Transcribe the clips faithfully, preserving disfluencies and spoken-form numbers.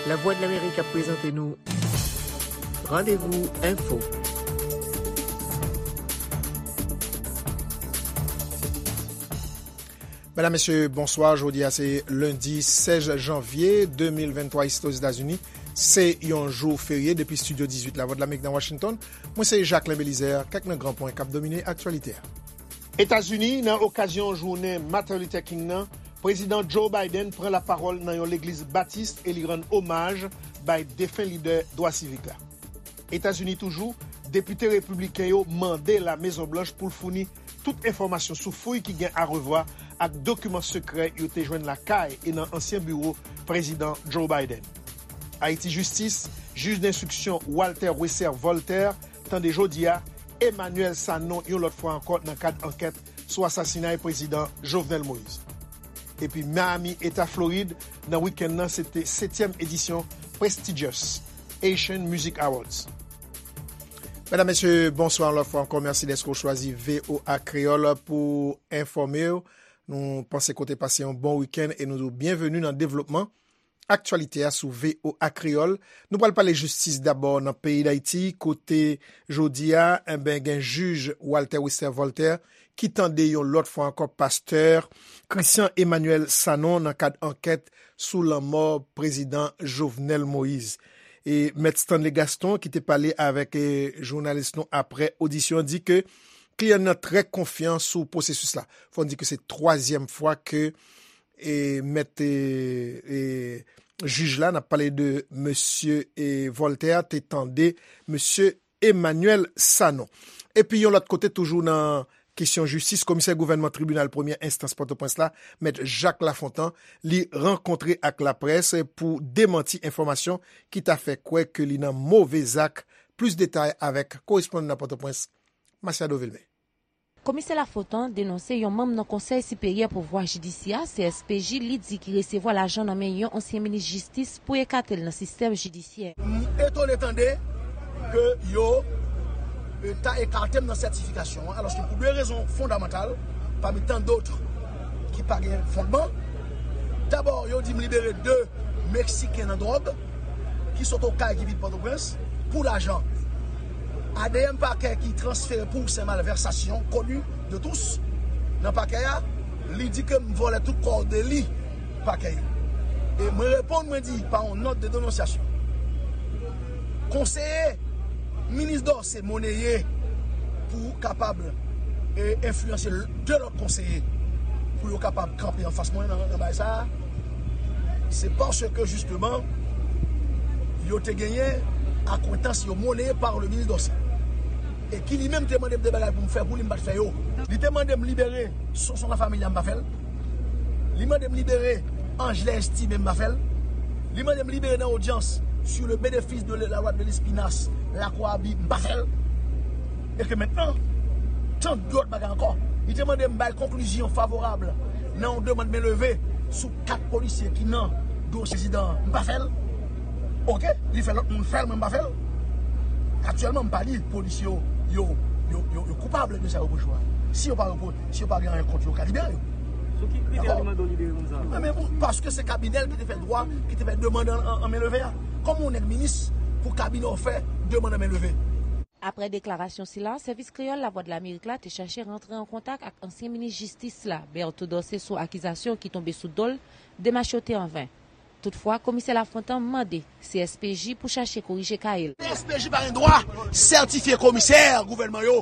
Lavwadlamerik ap prezante nou Randevou Enfo. Medam, mesye, bonswa. Jodi a se lendi sèz janvye de mil venntwa, isi Ozetazini. Se yon jou ferye. Depi estidyo dizuit Lavwadlamerik nan Washington, mwen se Jacquelin Belizaire. Kèk nan gran pwen k ap domine aktyalite a. Etazini, nan okazyon jounen Martin Luther King nan, Prezidan Joe Biden pran lapawòl nan yon legliz batis e li rann omaj bay defen lidè dwa sivik la. Etazini toujou, depite repibliken yo mande La Mezon Blanch pou l founi tout enfòmasyon sou fouy ki gen arevwa ak dokiman sekrè yo te jwenn lakay e nan ansyen biwo Prezidan Joe Biden. Ayiti, jistis, jij denstriksyon Walter Wesser Voltaire tande jodi a Emmanuel Sanon yon lòt fwa ankò nan kad ankèt sou asasinay Prezidan Jovenel Moïse. Epi Miami, Eta Florid, nan wikenn nan, se te setyèm edisyon Prestigious Haitian Music Awards. Medam, mesye, bonswa yon lòt fwa ankò. Mèsi dèske w chwazi V O A Kreyòl pou enfòme w. Nou panse ke w te pase yon bon wikenn e nou di w byenveni nan devlopman aktyalite a sou V O A Kreyòl. Nou pral pale jistis dabò nan peyi Dayiti, kote jodi a, enben, gen jij Walter Wesser Voltaire ki tande yon lòt fwa ankò pastè Christian Emmanuel Sanon nan kad ankèt sou lanmò Prezidan Jovenel Moïse. E Mèt Stanley Gaston, ki te pale avèk, e, jounalis nou apre odisyon an, di ke kliyan nan trè konfyan sou pwosesis la. Fò n di ke se twazyèm fwa ke, e, mèt, e, e, jij la, n ap pale de mesye, e, Voltaire, te tande mesye Emmanuel Sanon. Epi yon lòt kote, toujou nan kesyon jistis, komisè gouvènman tribinal premyè enstans Pòtoprens la, mèt Jacques Lafontant, li rankontre ak laprès pou demanti enfòmasyon ki ta fè kwè ke li nan move zak. Plis detay avèk korespondan nan Pòtoprens, Masiado Vilmé. Komisè Lafontant denonse yon manm nan Konsèy Siperyè Pouvwa Jidisyè, C S P J, li di ki resevwa lajan nan men yon ansyen minis jistis pou ekate l nan sistèm jidisyè. M etone tande ke yo, e, ta ekate m nan sètifikasyon an, alòske pou de rezon fondamantal, pami tan dòt ki pa gen fondman. Dabò, yo di m libere de Meksiken nan dwòg ki sot Okay ki vin Pòtoprens pou lajan. A D M pakè ki transfere pou se malvèsasyon koni de tous nan pakè a, li di ke m vòlè tout kò deli pakè yo. E mwen reponn, mwen di, pa yon nòt de denonsyasyon, konseye minis Dorcé moneye pou kapab, e, enfliyanse de lòt konseye pou yo kapab kanpe anfas mwen nan, nan bagay sa a, se paske, jisteman, yo te genyen akwentans yo moneye pa le minis Dorcé. E ki li menm te mande m de bagay pou m fè pou li, m pa t fè yo. Li te mande m libere Sonson Lafamilia, m pa fè l. Li mande m libere Angelin Estimé, m pa fè l. Li mande m libere nan odyans sur le bénéfice de la loi de Lespinasse, Lakwarabi, m pa fè l. E ke mentnan, tan dòt bagay ankò. Li te mande m bay konklizyon favorab nan yon demann men leve sou kat polisye ki nan dosye prezidan an, m pa fè l. Oke, li fè lòt moun fè l, mwen m pa fè l. Aktyèlman, m pa di polisye yo, yo, yo, yo, yo koupab de sa yo repwoche a. Si yo pa repwo-, si yo pa gen anyen kont yo, yo ka libere yo. Sou ki kritè li mande w libere moun sa yo? Men, men, paske se kabinè l ki te fè dwa, ki te fè demann an, an, an men leve a. Kòman yon nèg minis pou kabinè w fè demann an men leve? Apre deklarasyon sila, Sèvis Kreyòl Lavwadlamerik la te chache rantre an kontak ak ansyen minis jistis la, Berto Dorcé, sou akizasyon ki tonbe sou do l, demach yo te an ven. Toutfwa, komisè Lafontant mande C S P J pou chache korije kay l. C S P J pa gen dwa sètifye komisè gouvènman yo,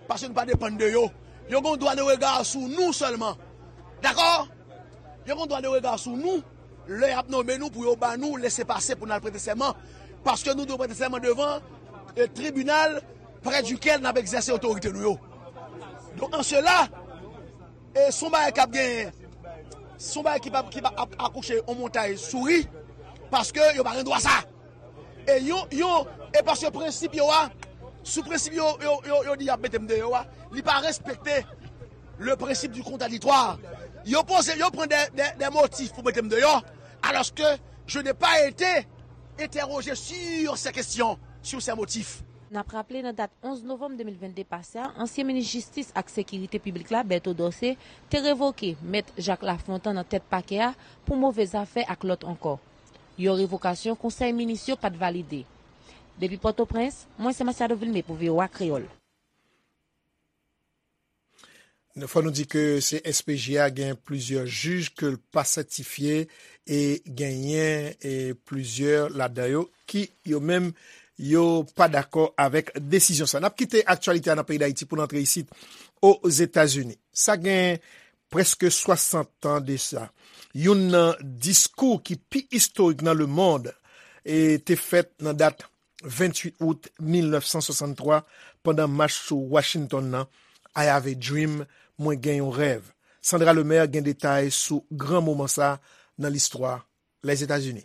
paske nou pa depann de yo. Yo gen dwa de rega sou nou sèlman. Dakò? Yo gen dwa de rega sou nou lè y ap nonmen nou pou yo ba nou lese pase pou n al prete sèman, paske nou dwe prete sèman devan, e, tribinal prè dikèl n ap egzèse otorite nou yo. Donk, an sela, e, se yon bagay k ap genyen, se yon bagay ki pa, ki pa ap akouche yon montay souri, paske yo pa gen dwa sa. E yon, yon, e paske prensip yo a, sou prensip yo, yo, yo, yo di y ap mete m deyò a, li pa respekte le principe du contradictoire. Yo poze, yo pran de, de, de motif pou mete m deyò, alòske je n'ai pas été interrogé sur ces questions, sur ces motifs. N ap raple, nan dat onz novanm de mil vennde pase a, ansyen minis jistis ak sekirite piblik la, Berto Dorcé, te revoke Mèt Jacques Lafontant nan tèt pakè a pou move zafè ak lòt ankò. Yon revokasyon konsèy minis yo pa t valide. Depi Pòtoprens, mwen se Masiado Vilmé pou V O A Kreyòl. Fò nou di ke C S P J a gen plizyè jij ke l pa sètifye e genyen e plizyè ladan yo ki yo menm yo pa dakò avèk desizyon sa. N ap kite aktyalite a nan peyi Dayiti pou n antre isit Ozetazini. Sa gen prèske swasant tan de sa. Youn nan diskou ki pi istorik nan lemonn e te fèt nan dat venntuit out mil nèf san swasanntwa pandan mach sou Washington nan, I have a dream, mwen gen yon rèv. Sandra Lemaire gen detay sou gran moman sa nan listwa Lèzetazini.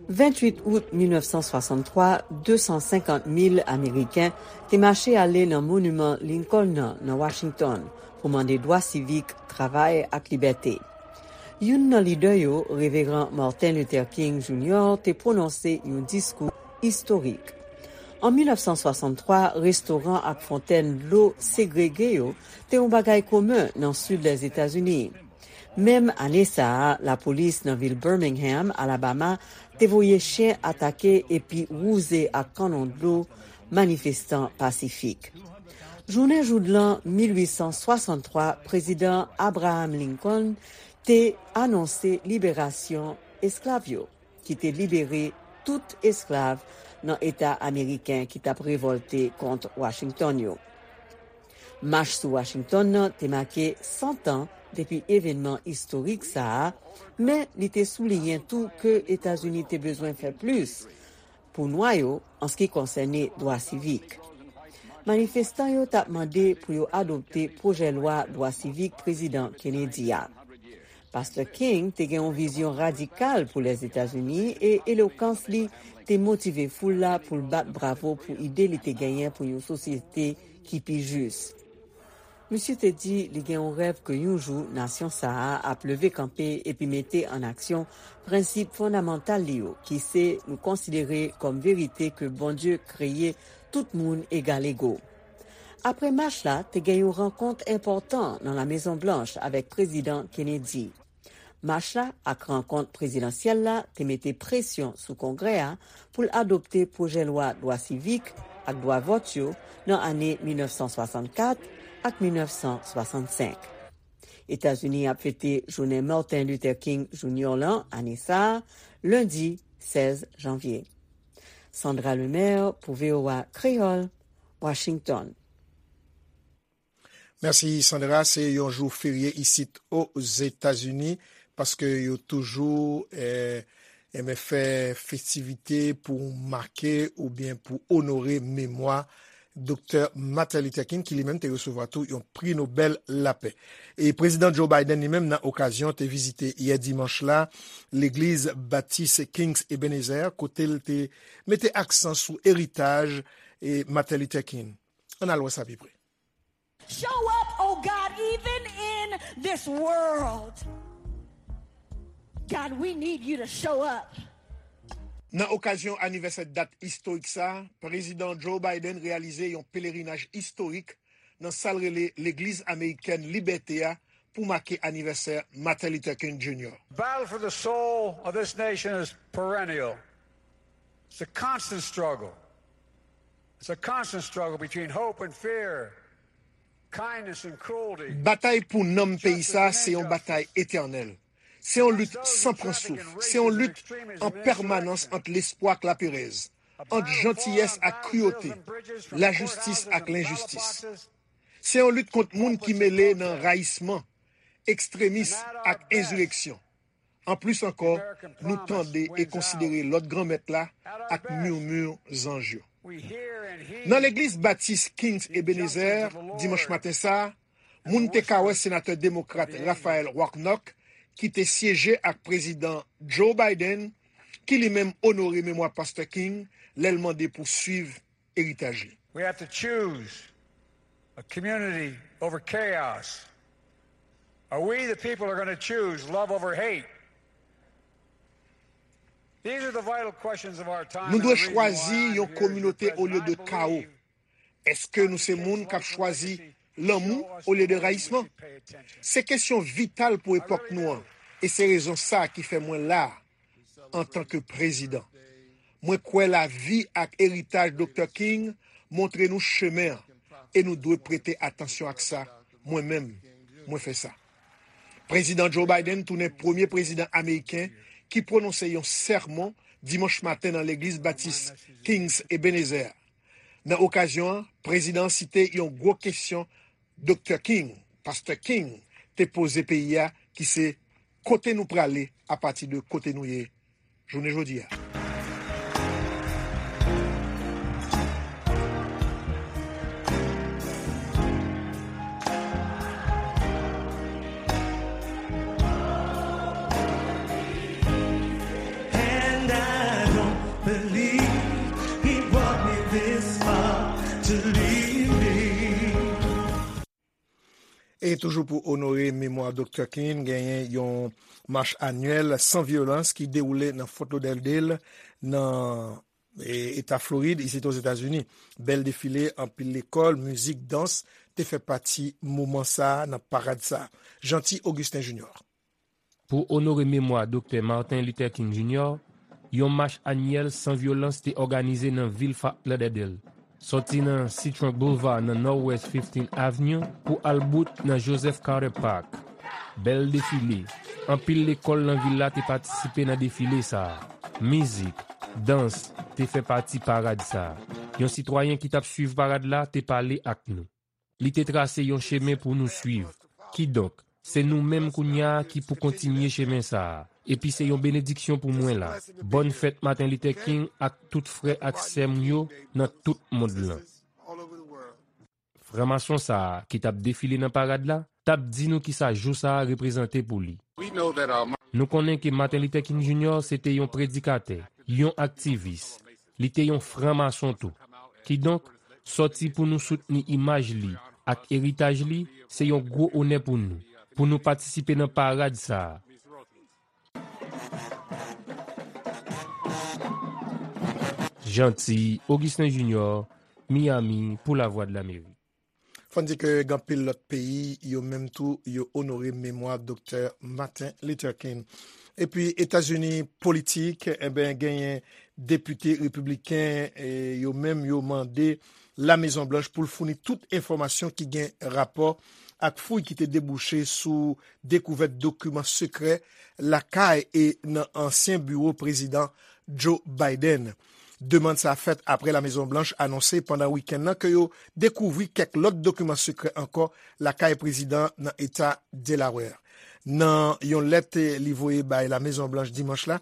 Venntuit out mil nèf san swasanntwa, de san senkant mil Ameriken te mache ale nan Moniman Lincoln nan, nan Washington, pou mande dwa sivik, travay ak libète. Youn nan lidè yo, Reveran Martin Luther King Junior te pwononse yon diskou istorik. An mil nèf san swasanntwa, restoran ak fontèn dlo segrege yo te yon bagay komen nan sid Lèzetazini. Menm ane sa a, lapolis nan vil Birmingham, Alabama, te voye chen atake epi wouze ak kannon dlo manifestan pasifik. Jounen joudlan mil uit san swasanntwa, Prezidan Abraham Lincoln te anonse liberasyon esklav yo, ki te libere tout esklav nan eta ameriken ki t ap revòlte kont Washington yo. Mach sou Washington nan te make san tan depi evènman istorik sa a, men li te souliyen tou ke Etazini te bezwen fè plis pou nwa yo an se ki konsène dwa sivik. Manifestan yo t ap mande pou yo adopte pwojè lwa dwa sivik Prezidan Kennedy a. Pastè King te gen yon vizyon radikal pou Lèzetazini e elokans li te motive foul la pou l bat bravo pou ide li te genyen pou yon sosyete ki pi jis. Misye te di li gen yon rèv ke yon jou nasyon sa a ap leve kanpe epi mete an aksyon prensip fondamantal li yo, ki se nou konsidere kòm verite ke Bondye kreye tout moun egalego. Apre mach la, te gen yon rankont enpòtan nan La Mezon Blanch avèk Prezidan Kennedy. Mach la ak rankont prezidansyèl la te mete presyon sou Kongrè a pou l adopte pwojè lwa dwa sivik ak dwa vòt yo nan ane mil nèf san swasannkat ak mil nèf san swasannsenk. Etazini ap fete jounen Martin Luther King Junior lan ane sa a, lendi sèz janvye. Sandra Lemaire pou V O A Kreyòl, Washington. Mèsi Sandra, se yon jou ferye isit Ozetazini paske yo toujou eh, enben fè festivite pou make oubyen pou onore memwa Doktè Martin Luther King ki li menm te resevwa tou yon pri Nobèl Lapè. E Prezidan Joe Biden li menm nan okazyon te vizite yè dimanch la legliz Batis King's Ebenezer kote l te mete aksan sou eritaj e Martin Luther King. Ann al wè sa pi pre. Show up, oh God, even in this world. God, we need you to show up. Nan okazyon anivèsè dat istorik sa, Prezidan Joe Biden reyalize yon pelerinaj istorik nan sa l rele Legliz Amerikèn Libète a pou make anivèsè Martin Luther King Junior. The battle for the soul of this nation is perennial. It's a constant struggle. It's a constant struggle between hope and fear, kindness and cruelty. Batay pou nanm peyi sa se yon batay etènèl. Se yon lit san pran souf. Se yon lit an pèmanans ant lespwa ak laperèz, ant jantiyès ak kriyote, lajistis ak lenjistis. Se yon lit kont moun ki mele nan rayisman, ekstremis ak enzireksyon. Anplis ankò, nou tande e konsidere lòd Granmèt la ak murmure zanj yo. Nan legliz Batis King's Ebenezer, dimanch maten sa a, moun te ka wè senatè demokrat Raphael Warnock, ki te syeje ak Prezidan Joe Biden, ki li menm onore memwa Pastè King lè l mande pou swiv eritaj li. We have to choose a community over chaos. Are we the people who are going to choose love over hate? These are the vital questions of our time. Nou dwe chwazi yon kominote olye de kawo. Èske nou se moun k ap chwazi lanmou olye de rayisman? Se kesyon vital pou epòk nou an, e se rezon sa a ki fè mwen la a. antanke prezidan. Mwen kwè lavi ak eritaj Doktè King montre nou chemen an, e nou dwe prete atansyon ak sa. Mwen menm, mwen fè sa. Prezidan Joe Biden tounen premye prezidan ameriken ki pwononse yon sèmon dimanch maten nan Legliz Batis King's Ebenezer. Nan okazyon an, prezidan an site yon gwo kesyon Doktè King, Pastè King, te poze peyi a, ki se: "Kote nou prale apati de kote nou ye jounen jodi a?" And I don't believe he brought me this far to leave me. E toujou pou onore memwa Doktè King, genyen yon mach anyèl san vyolans ki dewoule nan Fort Lauderdale, nan, e, eta Florid, isit Ozetazini. Bèl defile, anpil lekòl, mizik, dans te fè pati moman sa a, nan parad sa a. Jeanty Augustin Junior. Pou onore memwa Doktè Martin Luther King Junior, yon mach anyèl san vyolans te òganize nan vil Fort Lauderdale, sòti nan Seatrunk Boulevard nan Northwest fifteenth Avenue pou al bout nan Joseph Carter Park. Bèl defile. Anpil lekòl nan vil la te patisipe nan defile sa a. Mizik, dans te fè pati parad sa a. Yon sitwayen ki t ap swiv parad la te pale ak nou. Li te trase yon chemen pou nou swiv. Kidonk, se nou menm kounye a ki pou kontinye chemen sa a. Epi se yon benediksyon pou mwen la. Bòn fèt Martin Luther King ak tout frè ak sè m yo nan tout mond lan. Franmason sa a ki t ap defile nan parad la, t ap di nou kisa jou sa a reprezante pou li. Nou konnen ke Martin Luther King Junior se te yon predikatè, yon aktivis. Li te yon franmason tou. Kidonk, sòti pou nou soutni imaj li ak eritaj li, se yon gwo onè pou nou, pou nou patisipe nan parad sa a. Jeanty Augustin Junior, Miami, pou Lavwadlamerik. Fò n di ke gen anpil lòt peyi, yo menm tou, yo onore memwa Doktè Martin Luther King. Epi Etazini politik, enben, genyen depite repibliken, e, yo menm, yo mande La Mezon Blanch pou l founi tout enfòmasyon ki gen rapò ak fouy ki te debouche sou dekouvèt dokiman sekrè lakay e nan ansyen biwo prezidan Joe Biden. Demann sa fèt apre La Mezon Blanch anonse pandan wikenn nan ke yo dekouvri kèk lòt dokiman sekrè ankò lakay prezidan nan eta Delaware. Nan yon lèt li voye bay La Mezon Blanch dimanch la,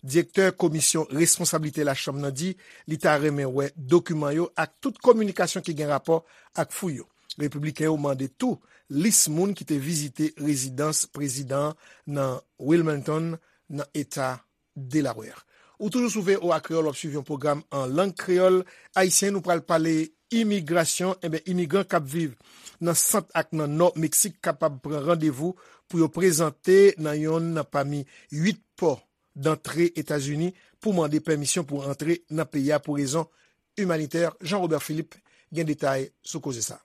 direktè komisyon responsablite lachanm nan di li ta renmen wè dokiman yo ak tout kominikasyon ki gen rapò ak fouy yo. Repibliken yo mande tou lis moun ki te vizite rezidans prezidan an nan Wilmington, nan eta Delaware. Ou toujou sou V O A Kreyòl, w ap swiv yon pwogram an lang kreyòl ayisyen. Nou pral pale imigrasyon. Enben, imigran k ap viv nan sant ak nan nò Meksik kapab pran randevou pou yo prezante nan yonn nan pami uit pò dantre Etazini pou mande pèmisyon pou antre nan peyi a pou rezon imanitè. Jean Robert Philippe gen detay sou koze sa.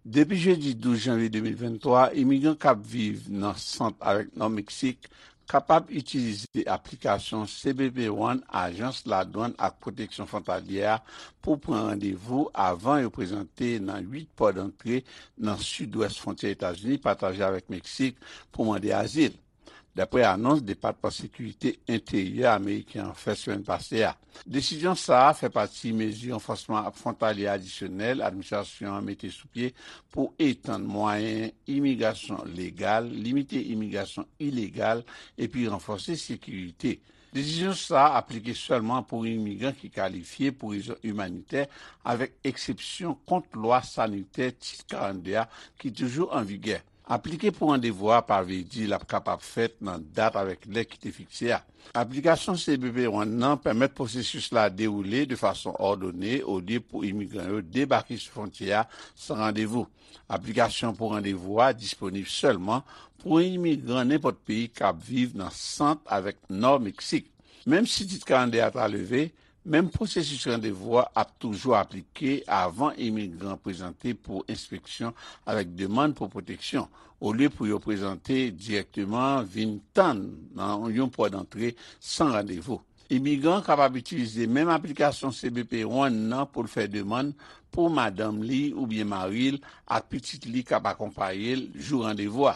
Depi jedi douz janvye de mil venntwa, imigran k ap viv nan sant avèk nò Meksik kapab itilize aplikasyon C B P One Ajans Ladwann ak Pwoteksyon Fwontalyè a pou pran randevou avan yo prezante nan uit pò dantre nan sidwès fwontyè Etazini pataje avèk Meksik pou mande azil. Daprè anons Depatman Sekirite Enteryè ameriken an fè semèn pase a. Desizyon sa a fè pati mezi ranfòsman fwontalye adisyonèl administrasyon an mete sou pye pou etann mwayen imigrasyon legal, limite imigrasyon ilegal epi ranfòse sekirite. Desizyon sa a aplike sèlman pou imigran ki kalifye pou rezon imanitè avèk eksepsyon kont lwa sanitè Tit karannde a ki toujou an vigè. Aplike pou randevou a pa vle di l ap kapab fèt nan dat avèk lè ki te fikse a. Aplikasyon C B P One nan pèmèt pwosesis la dewoule de fason òdone olye pou imigran yo debake sou fwontyè a san randevou. Aplikasyon pou randevou a disponib sèlman pou imigran nenpòt peyi k ap viv nan sant avèk nò Meksik. Menm si Tit karannde a ta leve, Menm pwosesis randevou a ap toujou aplike avan imigran prezante pou enspeksyon avèk demann pou pwoteksyon, olye pou yo prezante dirèkteman, vin tann nan yon pò dantre san randevou. Imigran kapab itilize menm aplikasyon C B P One nan pou l fè demann pou madanm li oubyen mari l ak pitit li k ap akonpaye l jou randevou a.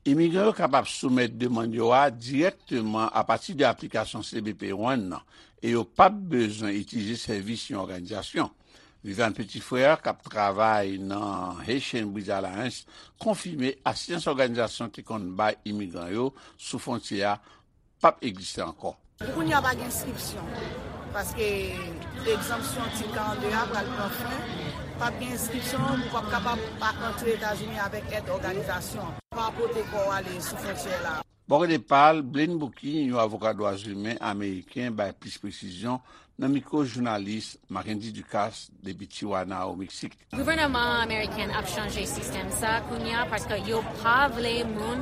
Imigran yo kapab soumèt demann yo a dirèkteman apati de aplikasyon C B P One nan, e yo p ap bezwen itilize sèvis yon òganizasyon. Viviane Petit-Frère, k ap travay nan Haitian Bridge Alliance, konfime asistans òganizasyon te konn bay imigran yo sou fwontyè a p ap egziste ankò. Pou kounye a, pa gen enskripsyon, paske egzanpsyon Tit karannde a pral pran fen. P ap gen enskripsyon, ou p ap kapab pa antre Etazini avèk èd òganizasyon. Pa pote kò w ale sou fwontyè la. Bò kote pa l, Blaine Bouquin, yon avoka dwa imen ameriken, bay plis presizyon nan mikwo jounalis Mackendy Ducasse depi Tijuana, o Meksik. Gouvènman ameriken ap chanje sistèm sa kounye a paske yo pa vle moun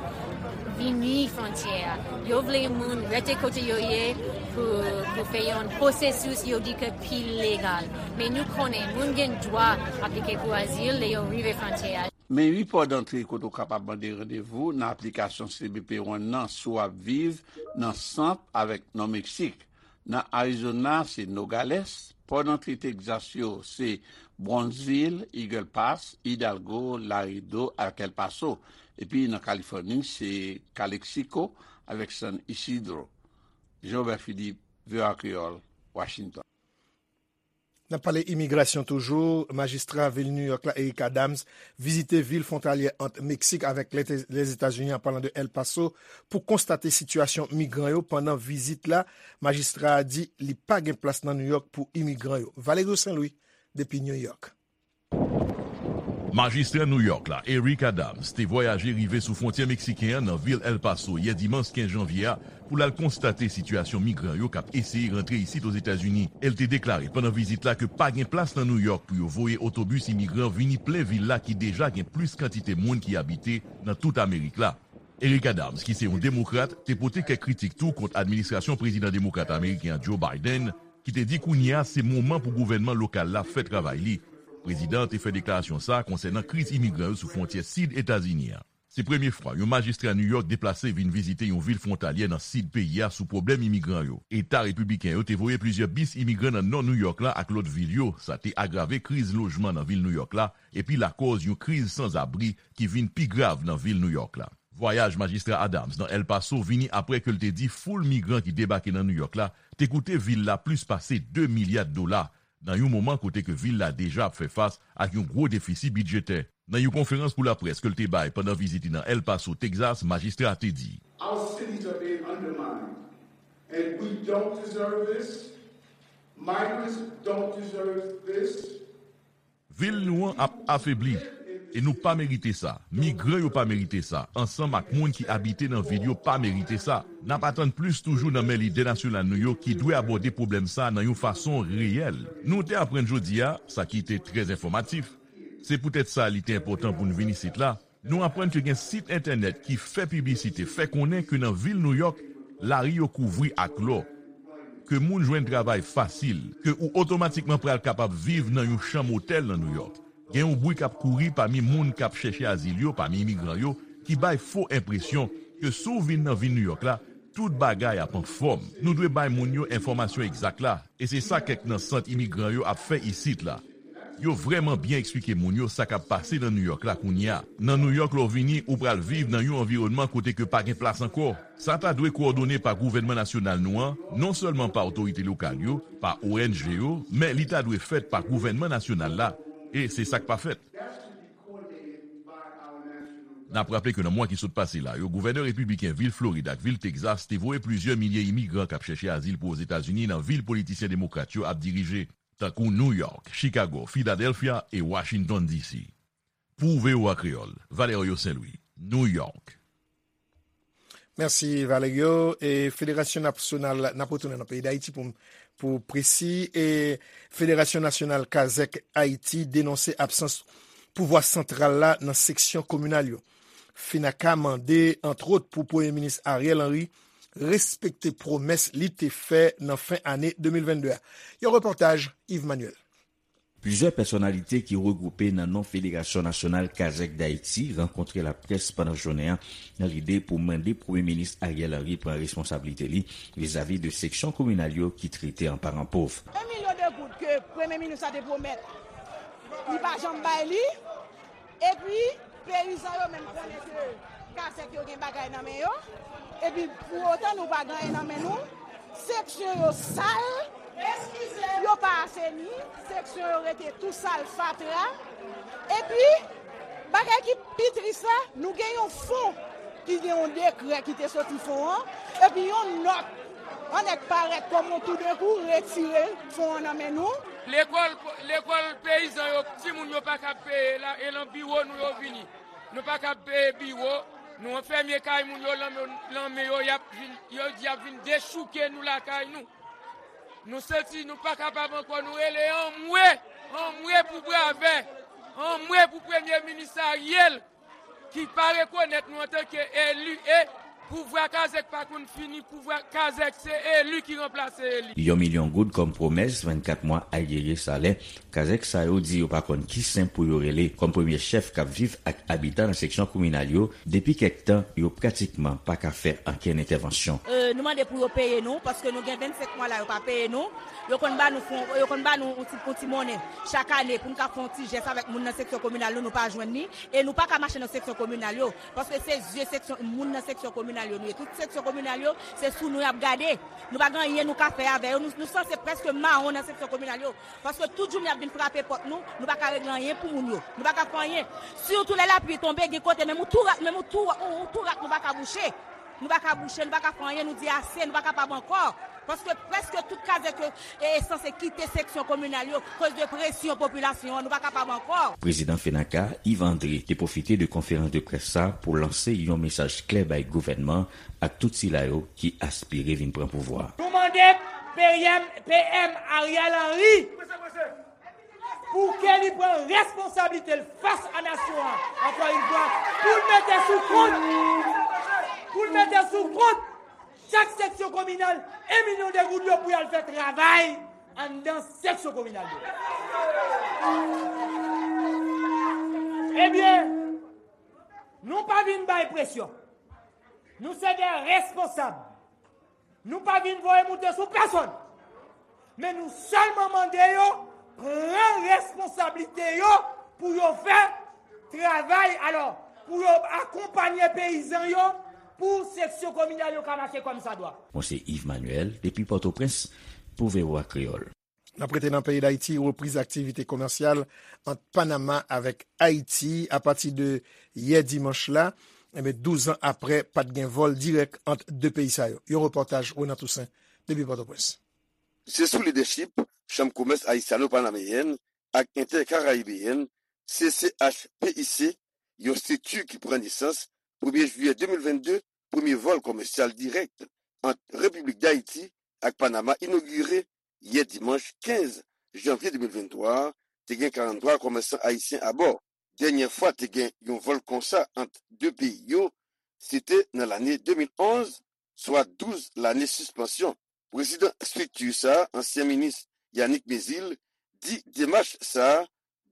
vini fwontyè a. Yo vle moun rete kote yo ye pou, pou fè yon pwosesis yo di ke pi legal. Men nou konnen moun gen dwa aplike pou azil lè yo rive fwontyè a. Men wi pò dantre kote w kapab mande randevou nan aplikasyon C B P One nan si w ap viv nan sant avèk nò Meksik. Nan Arizona, se Nogales. Pò dantre Texas yo, se Brownsville, Eagle Pass, Hidalgo, Laredo ak El Paso. Epi nan Kalifòni, se Calexico avèk San Isidro. Jean Robert Philippe, V O A Kreyòl, Washington. N ap pale imigrasyon toujou. Majistra vil New York la, Eric Adams, vizite vil fwontalyè ant Meksik avèk Lète-, Lèzetazini, an palan de El Paso, pou konstate sitiyasyon migran yo. Pandan vizit la, majistra a di li pa gen plas nan New York pou imigran yo. Valerio Saint Louis, depi New York. Majistra New York la, Eric Adams, te vwayaje rive sou fwontyè meksiken an nan vil El Paso yè dimanch kenz janvye a, pou l al konstate sitiyasyon migran yo k ap eseye rantre isit Ozetazini. E l te deklare pandan vizit la ke pa gen plas nan New York pou yo voye otobis imigran vini plen vil la ki deja gen plis kantite moun ki abite nan tout Amerik la. Eric Adams, ki se yon demokrat, te pote kèk kritik tou kont administrasyon prezidan demokrat ameriken an Joe Biden, ki te di kounye a se moman pou gouvènman lokal la fè travay li. Prezidan an te fè deklarasyon sa a konsènan kriz imigran yo sou fwontyè sid Etazini an. Se premye fwa yon majistra New York deplase vin vizite yon vil fwontalyè nan sid peyi a sou pwoblèm imigran yo. Eta repibliken yo te voye plizyè bis imigran nan nò New York la ak lòt vil yo. Sa te agrave kriz lojman nan vil New York la epi lakòz yon kriz sanzabri ki vin pi grav nan vil New York la. Vwayaj majistra Adams nan El Paso vini apre ke l te di foul migran ki debake nan New York la te koute vil la plis pase de milya dola, nan yon moman kote ke vil la deja ap fè fas ak yon gwo defisi bidjetè. Nan yon konferans pou laprès ke l te bay pandan vizit li nan El Paso, Texas, majistra a te di, Our cities are being undermined, and we don't deserve this. Migrants don't deserve this. Vil nou an ap afebli, e nou pa merite sa. Migran yo pa merite sa, ansanm ak moun ki abite nan vil yo pa merite sa. N ap atann plis toujou nan men lidè nasyonal nou yo ki dwe abòde pwoblèm sa a nan yon fason reyèl. Nou te aprann jodi a, sa ki te trè enfòmatif. Se poutèt sa li te enpòtan pou n vin isit la. Nou aprann ke gen sit entènèt ki fè piblisite, fè konnen ke nan vil New York, lari yo kouvri ak lò, ke moun jwenn travay fasil, ke ou otomatikman pral kapab viv nan yon chanm otèl nan New York. Gen yon bri k ap kouri pami moun k ap chèche azil yo, pami imigran yo, ki bay fo enpresyon ke si w vin nan vil New York la, tout bagay ap anfòm. Nou dwe bay moun yo enfòmasyon egzak la, e se sa kèk nan sant imigran yo ap fè isit la. Yo vrèman byen eksplike moun yo sa k ap pase nan New York la kounye a. Nan New York, lè w vini, ou pral viv nan yon anviwònman kote ke pa gen plas ankò. Sa ta dwe kowòdone pa gouvènman nasyonal nou an, non sèlman pa otorite lokal yo, pa O N G yo, men li ta dwe fèt pa gouvènman nasyonal la, e se sa k pa fèt. N ap raple ke nan mwa ki sot pase la yo, gouvènè repibliken vil Florid ak vil Texas te voye plizyè milye imigran k ap chèche azil pou Ozetazini nan vil politisyen demokrat yo ap dirije, tankou New York, Chicago, Philadelphia e Washington D C. Pou V O A Kreyòl, Valerio Saint Louis, New York. Mèsi, Valerio. E Federasyon Nasyonal, n ap retounen nan peyi Dayiti pou, pou presi, e Federasyon Nasyonal Kazèk Ayiti denonse absans pouvwa santral la nan seksyon kominal yo. FENAKA mande, antwòt, pou Premye Minis Ariel Henry respekte pwomès li te fè nan fen ane de mil vennde a. Yon repòtaj Yves Manuel. Plizyè pèsonalite ki regwoupe nan non Federasyon Nasyonal Kazèk Dayiti rankontre laprès pandan jounen an nan lide pou mande Premye Minis Ariel Henry pran responsablite li vizavi de seksyon kominal yo ki trete an paran pòv. Un million de goud ke Premye Minis la te pwomèt, li pa janm bay li. Epi, peyizan yo menm konnen ke kazèk yo gen bagay nan men yo. Epi, pou otan nou pa gen anyen nan men nou, seksyon yo sal, yo pa aseni, seksyon yo rete tou sal, fatra. Epi, bagay ki pi tris la, nou gen yon fon ki gen yon dekrè ki te soti fon an, epi yon nòt anèk parèt kòm yon toudenkou retire fon an nan men nou. Lekòl, lekòl peyizan yo, timoun yo pa ka peye la, e lan biwo nou yo vini. Nou pa ka peye biwo, nou anfèmen kay moun yo, lanmen, lanmen yo, y ap vin, yo di y ap vin dechouke nou lakay nou. Nou santi nou pa kapab ankò, nou rele anmwe, anmwe pou Bravè, anmwe pou Premye Minis Ariel, ki pa rekonèt nou antanke eli, e pouvwa kazèk pa konn fini, pouvwa kazèk se eli ki ranplase eli. Yon milyon goud kòm pwomès, vennkat mwa ayere salè, kazèk sa yo di yo pa konn ki sen pou yo rele. Kòm premye chèf k ap viv ak abitan nan seksyon kominal yo, depi kèk tan, yo pratikman pa ka fè ankenn entèvansyon. E, nou mande pou yo peye nou, paske nou gen vennsenk mwa la, yo pa peye nou. Yo konn ba nou fon, yo konn ba nou yon ti, yon ti monnen chak ane pou n ka fè yon ti jès avèk moun nan seksyon kominal nou, nou pa jwenn li. E nou pa ka mache nan seksyon kominal yo, paske se zye seksyon, moun nan seksyon kominal yo nou ye. Tout seksyon kominal yo, se sou nou y ap gade. Nou pa gen anyen nou ka fè avè yo. Nou, nou sanse prèske mawon nan seksyon kominal yo. Paske tout jounen y ap vin frape pòt nou, nou pa ka regle anyen pou moun yo. Nou pa ka fè anyen. Sitou lè lapli tonbe, gen kote, menm yon tou rak, menm yon tou, yon, yon tou rak nou pa ka bouche. Nou pa ka bouche, nou pa ka fè anyen, nou di ase, nou pa kapab ankò. Paske prèske tout kazèk yo, e, sanse kite seksyon kominal yo, koz de presyon popilasyon an, nou pa kapab ankò. Prezidan FENAKA, Yves André, te pwofite de konferans de près sa pou lanse yon mesaj klè bay gouvènman ak tout sila yo ki aspire vin pran pouvwa. Nou mande P M, P M Ariel Henry pou ke li pran responsablite l fas a nasyon an, ankò yon fwa, pou l mete sou kont, pou l mete sou kont chak seksyon kominal, en milyon de goud yo pou y al fè travay anndan seksyon kominal yo. Ebyen, nou pa vin bay presyon. Nou se de responsab. Nou pa vin voye moute sou pèsonn. Men nou sèlman mande yo pran responsablite yo pou yo fè travay, alò, pou yo akonpanye peyizan yo, pou seksyon kominal yo ka mache kòmsadwa. Mwen se Yves Manuel, depi Pòtoprens, pou V O A Kreyòl. N ap rete nan peyi Dayiti, repriz aktivite komèsyal ant Panama avèk Ayiti apati de yè dimanch la. Enben, douz an aprè, pa t gen vòl dirèk ant de peyi sa yo. Yon repòtaj Renan Toussaint, depi Pòtoprens. Se sou lidèchip Chanm Komès Ayisyano-Panameyèn ak Entèkarayibeyèn, C C H P I C, yon estrikti ki pran nesans, premye jiyè de mil vennde, premye vòl komèsyal dirèk ant Repiblik Dayiti ak Panama inogire yè dimanch kenz janvye de mil venntwa a, te gen karanntwa komèsan ayisyen abò. Dènyè fwa te gen yon vòl konsa ant de peyi yo, se te nan lane de mil onz, swa douz lane sispansyon. Prezidan estrikti sa a, ansyen minis Yanick Mézil, di demach sa a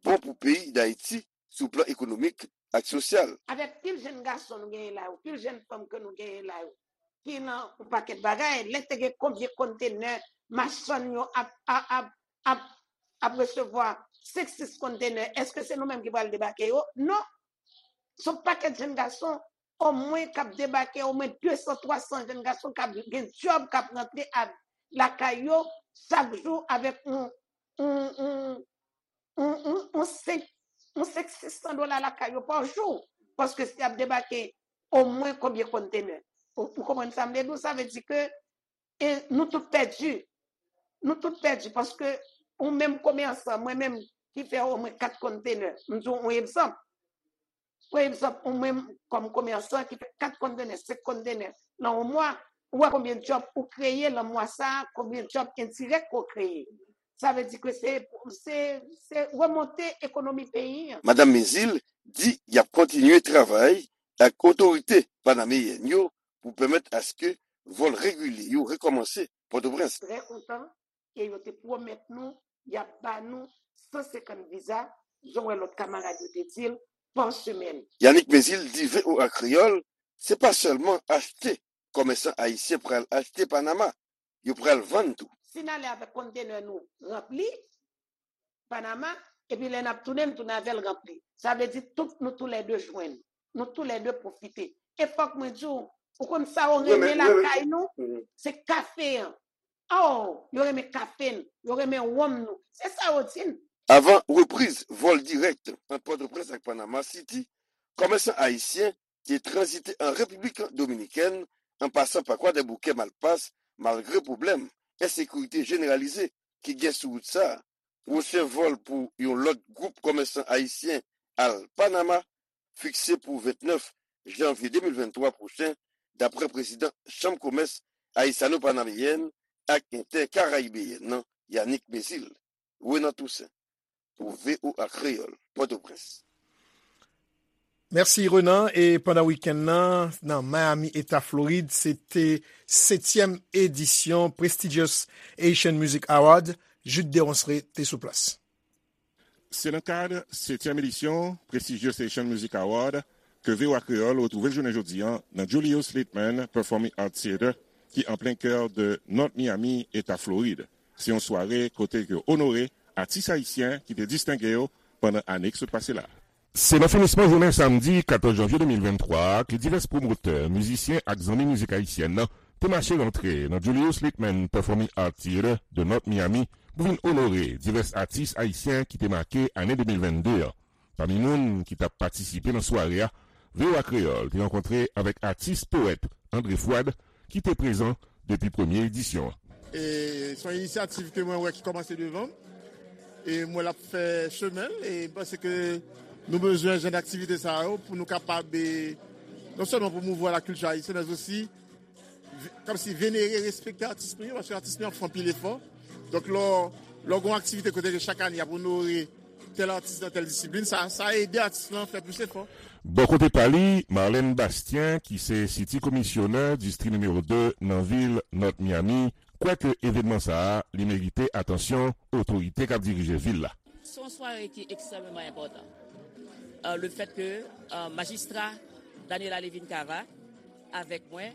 bon pou peyi Dayiti sou plan ekonomik ak sosyal. Avèk pil jèn gason nou genyen la yo, pil jèn fanm ke nou genyen la yo, ki nan yon pakèt bagay, lè te gen konbyen kontenè machann yo ap, ap, ap, ap, ap resevwa senk, sis kontenè, èske se nou menm ki pral debake yo? Non. Se yon pakèt jèn gason, omwen k ap debake, omwen de san, twa san jèn gason k ap gen djòb, k ap rantre a, lakay yo chak jou avèk yon, yon, yon, yon, yon, yon senk, yon senk, sis san dola lakay yo pa jou. Paske si y ap debake omwen konbyen kontenè? Ou, ou konprann sa m vle di w? Sa vle di ke, e, nou tout pèdi. Nou tout pèdi paske ou menm komèsan, mwen menm ki fè omwen kat kontenè, m di w yon egzanp. Pa egzanp, ou menm kòm komèsan ki fè kat kontenè, senk kontenè nan yon mwa, ou wè konbyen djòb ou kreye nan mwa sa a, konbyen djòb endirèk ke w kreye. Sa vle di ke se, se, se remonte ekonomi peyi an. Madanm Mézil di y ap kontinye travay ak otorite panameyèn yo pou pèmèt aske vòl regilye yo rekòmanse Pòtoprens. Trè kontan, e yo te pwomèt nou y ap ba nou san senkant viza, jan w wè lòt kamarad yo te di l, pa semèn. Yannick Mézil di V O A Kreyòl, se pa sèlman achte kòmèsan ayisyen pral achte Panama, yo pral vann tou. Si n ale avèk kontenè nou ranpli, Panama, epi lè n ap tounen, n tounen avè l ranpli. Sa vle di tout nou toulède jwenn. Nou toulède pwofite. E fòk mwen di w, ou konn sa yo renmen lakay nou? Se kafe an. Oh, yo renmen kafe n, yo renmen wonm nou. Se sa yo di n. Avan repriz vòl dirèk ant Pòtoprens ak Panama City, kòmèsan ayisyen te tranzite an Repiblik Dominikèn, an pasan pa Kwadèboukè, Malpas, malgre pwoblèm ensekirite jeneralize ki gen sou wout sa a. Pwochen vòl pou yon lòt gwoup kòmèsan ayisyen al Panama fikse pou vennèf janvye de mil venntwa pwochen, daprè prezidan Chanm Komès Ayisyano-Panameyèn ak Entèkarayibeyèn nan, Yannick Mézil. Renan Toussaint, pou V O A Kreyòl, Pòtoprens. Mèsi, Renan. E pandan wikenn nan, nan Miami, Eta Florid, se te setyèm edisyon Prestigious Haitian Music Award. Jude Deronceray te sou plas. Se nan kad setyèm edisyon Prestigious Haitian Music Award ke V O A Kreyòl retwouve l jounen jodi a nan Julius Litman Performing Arts Theater, ki an plen kè de North Miami, Eta Florid. Se yon sware kote ke yo onore atis ayisyen ki te distenge yo pandan ane ki sot pase la. Se nan finisman jounen samdi katòz janvye de mil venntwa a ke divès pwomotè, mizisyen ak zanmi mizik ayisyèn nan te mache rantre nan Julius Litman Performing Arts Theater de North Miami pou vin onore divès atis ayisyen ki te make ane de mil vennde an. Pami moun ki t ap patisipe nan sware a, V O A Kreyòl te rankontre avèk atis powèt André Fouad, ki te prezan depi premye edisyon an. E se yon inisyativ ke mwen wè ki kòmanse devan m. E mwen l ap fè chemen l. E m panse ke nou bezwen jan aktivite sa yo pou nou kapab, e, non sèlman pwomouvwa lakilti ayisyèn, men osi ve- kòmsi venere, respekte atis nou yo, paske atis nou yo ap fè anpil efò. Donk, lè w, lè w gen yon aktivite kote ke chak ane y ap onore tèl atis nan tèl disiplin, sa, sa ede atis lan fè plis efò. Bò kote pa li, Marlène Bastien, ki se City Commissioner distri nimewo de nan vil North Miami, kwè ke evènman sa a, li merite atansyon otorite k ap dirije vil la. Se yon sware ki ekstrèmeman enpòtan. Euh, le fait que, euh, majistra Daniela Levine Cava avèk mwen,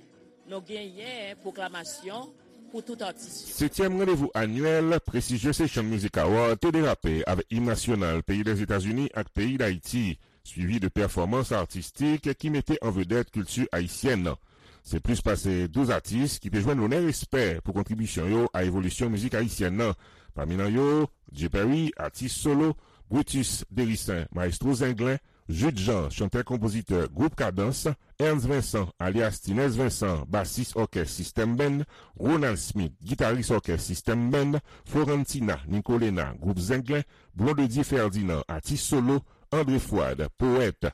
nou genyen pwoklamasyon pou tout atis yo. Setyèm randevou anyèl Prestigious Haitian Music Award te derape avèk im nasyonal peyi Lèzetazini ak peyi Dayiti, swivi de pèfòmans atistik ki mete an vedèt kilti ayisyèn nan. Se plis pase douz atis ki te jwenn lonè respè pou kontribisyon yo a evolisyon mizik ayisyèn nan. Pami nan yo, Dye Perry, atis solo, Brutus Dericin, mayestwo zenglen, Jude Jean, chantè-konpozitè gwoup Kadans, Ernst Vincent, alyas Tinès Vincent, basis òkès System Band, Ronald Smith, gitaris òkès System Band, Florentina Nicolena, gwoup Zenglen, Blondedy Ferdinand, atis solo, André Fouad, powèt,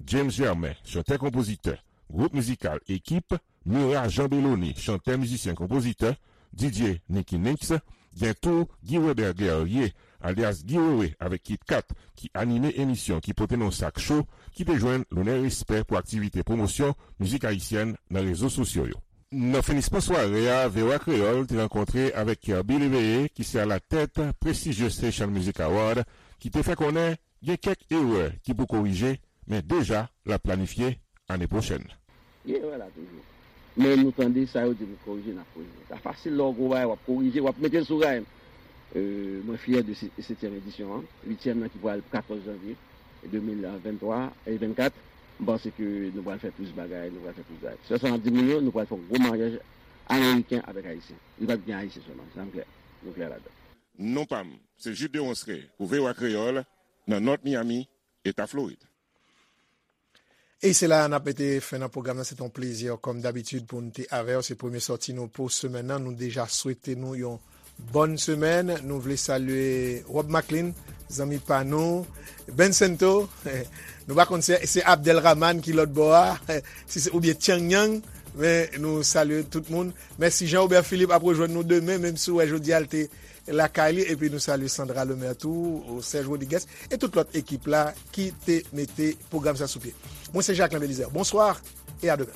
James Germain, chantè-konpozitè, gwoup mizikal Ekip, Murat Jean Belloni, chantè, mizisyen, konpozitè, Didier Nicky Nix, gen tou Guy Weber Guerrier, alyas Guy Wewe avèk Kit Kat, ki anime emisyon ki pote non Sak Cho, ki te jwenn lonè respè pou aktivite pwomosyon mizik ayisyèn nan rezo sosyo yo. Nan finisman sware a, V O A Kreyòl te rankontre avèk Kirby Léveillé, ki se alatèt Prestigious Haitian Music Award, ki te fè konnen gen kèk erè ki pou korije, men deja l ap planifye ane pwochèn. Gen erè la toujou. Men nou tande sa yo di pou korije, n ap korije. Sa fasil lè w gwo bagay, w ap korije, w ap mete l sou ray. Euh, mwen fyè de se- setyèm edisyon an, uityèm nan ki pral katòz janvye de mil venntwa e vennkat. M panse ke nou pral fè plis bagay, nou pral fè plis bagay. Sèl sa m ap di moun yo, nou pral fè yon gwo maryaj ameriken avèk ayisyen. Li p ap gen ayisyen sèlman, sa m klè. Nou klè ladan. Non pa m, se Jude Deronceray pou V O A Kreyòl, nan North Miami, Eta Florid. E se la a n ap mete fen nan pwogram nan. Se te yon plezi, kòm dabitid, pou n te avè w. Se premye sòti nou pou semèn nan. Nou deja swete nou yon bòn semèn. Nou vle salye Rob Maclean, zanmi pa nou, Ben Sento. Nou pa konn si se Abdel Rahman ki lòt bò a, si se, oubyen Tchang Yang, men nou salye tout moun. Mèsi. Jean Robert Philippe ap rejwenn nou demen, menm si w wè jodi a l te lakay li, epi nou salye Sandra Lemaire tou, Serge Rodriguez, e tout lòt ekip la ki te mete pwogram sa sou pye. Mwen se Jacquelin Belizaire. Bonsoir et à demain.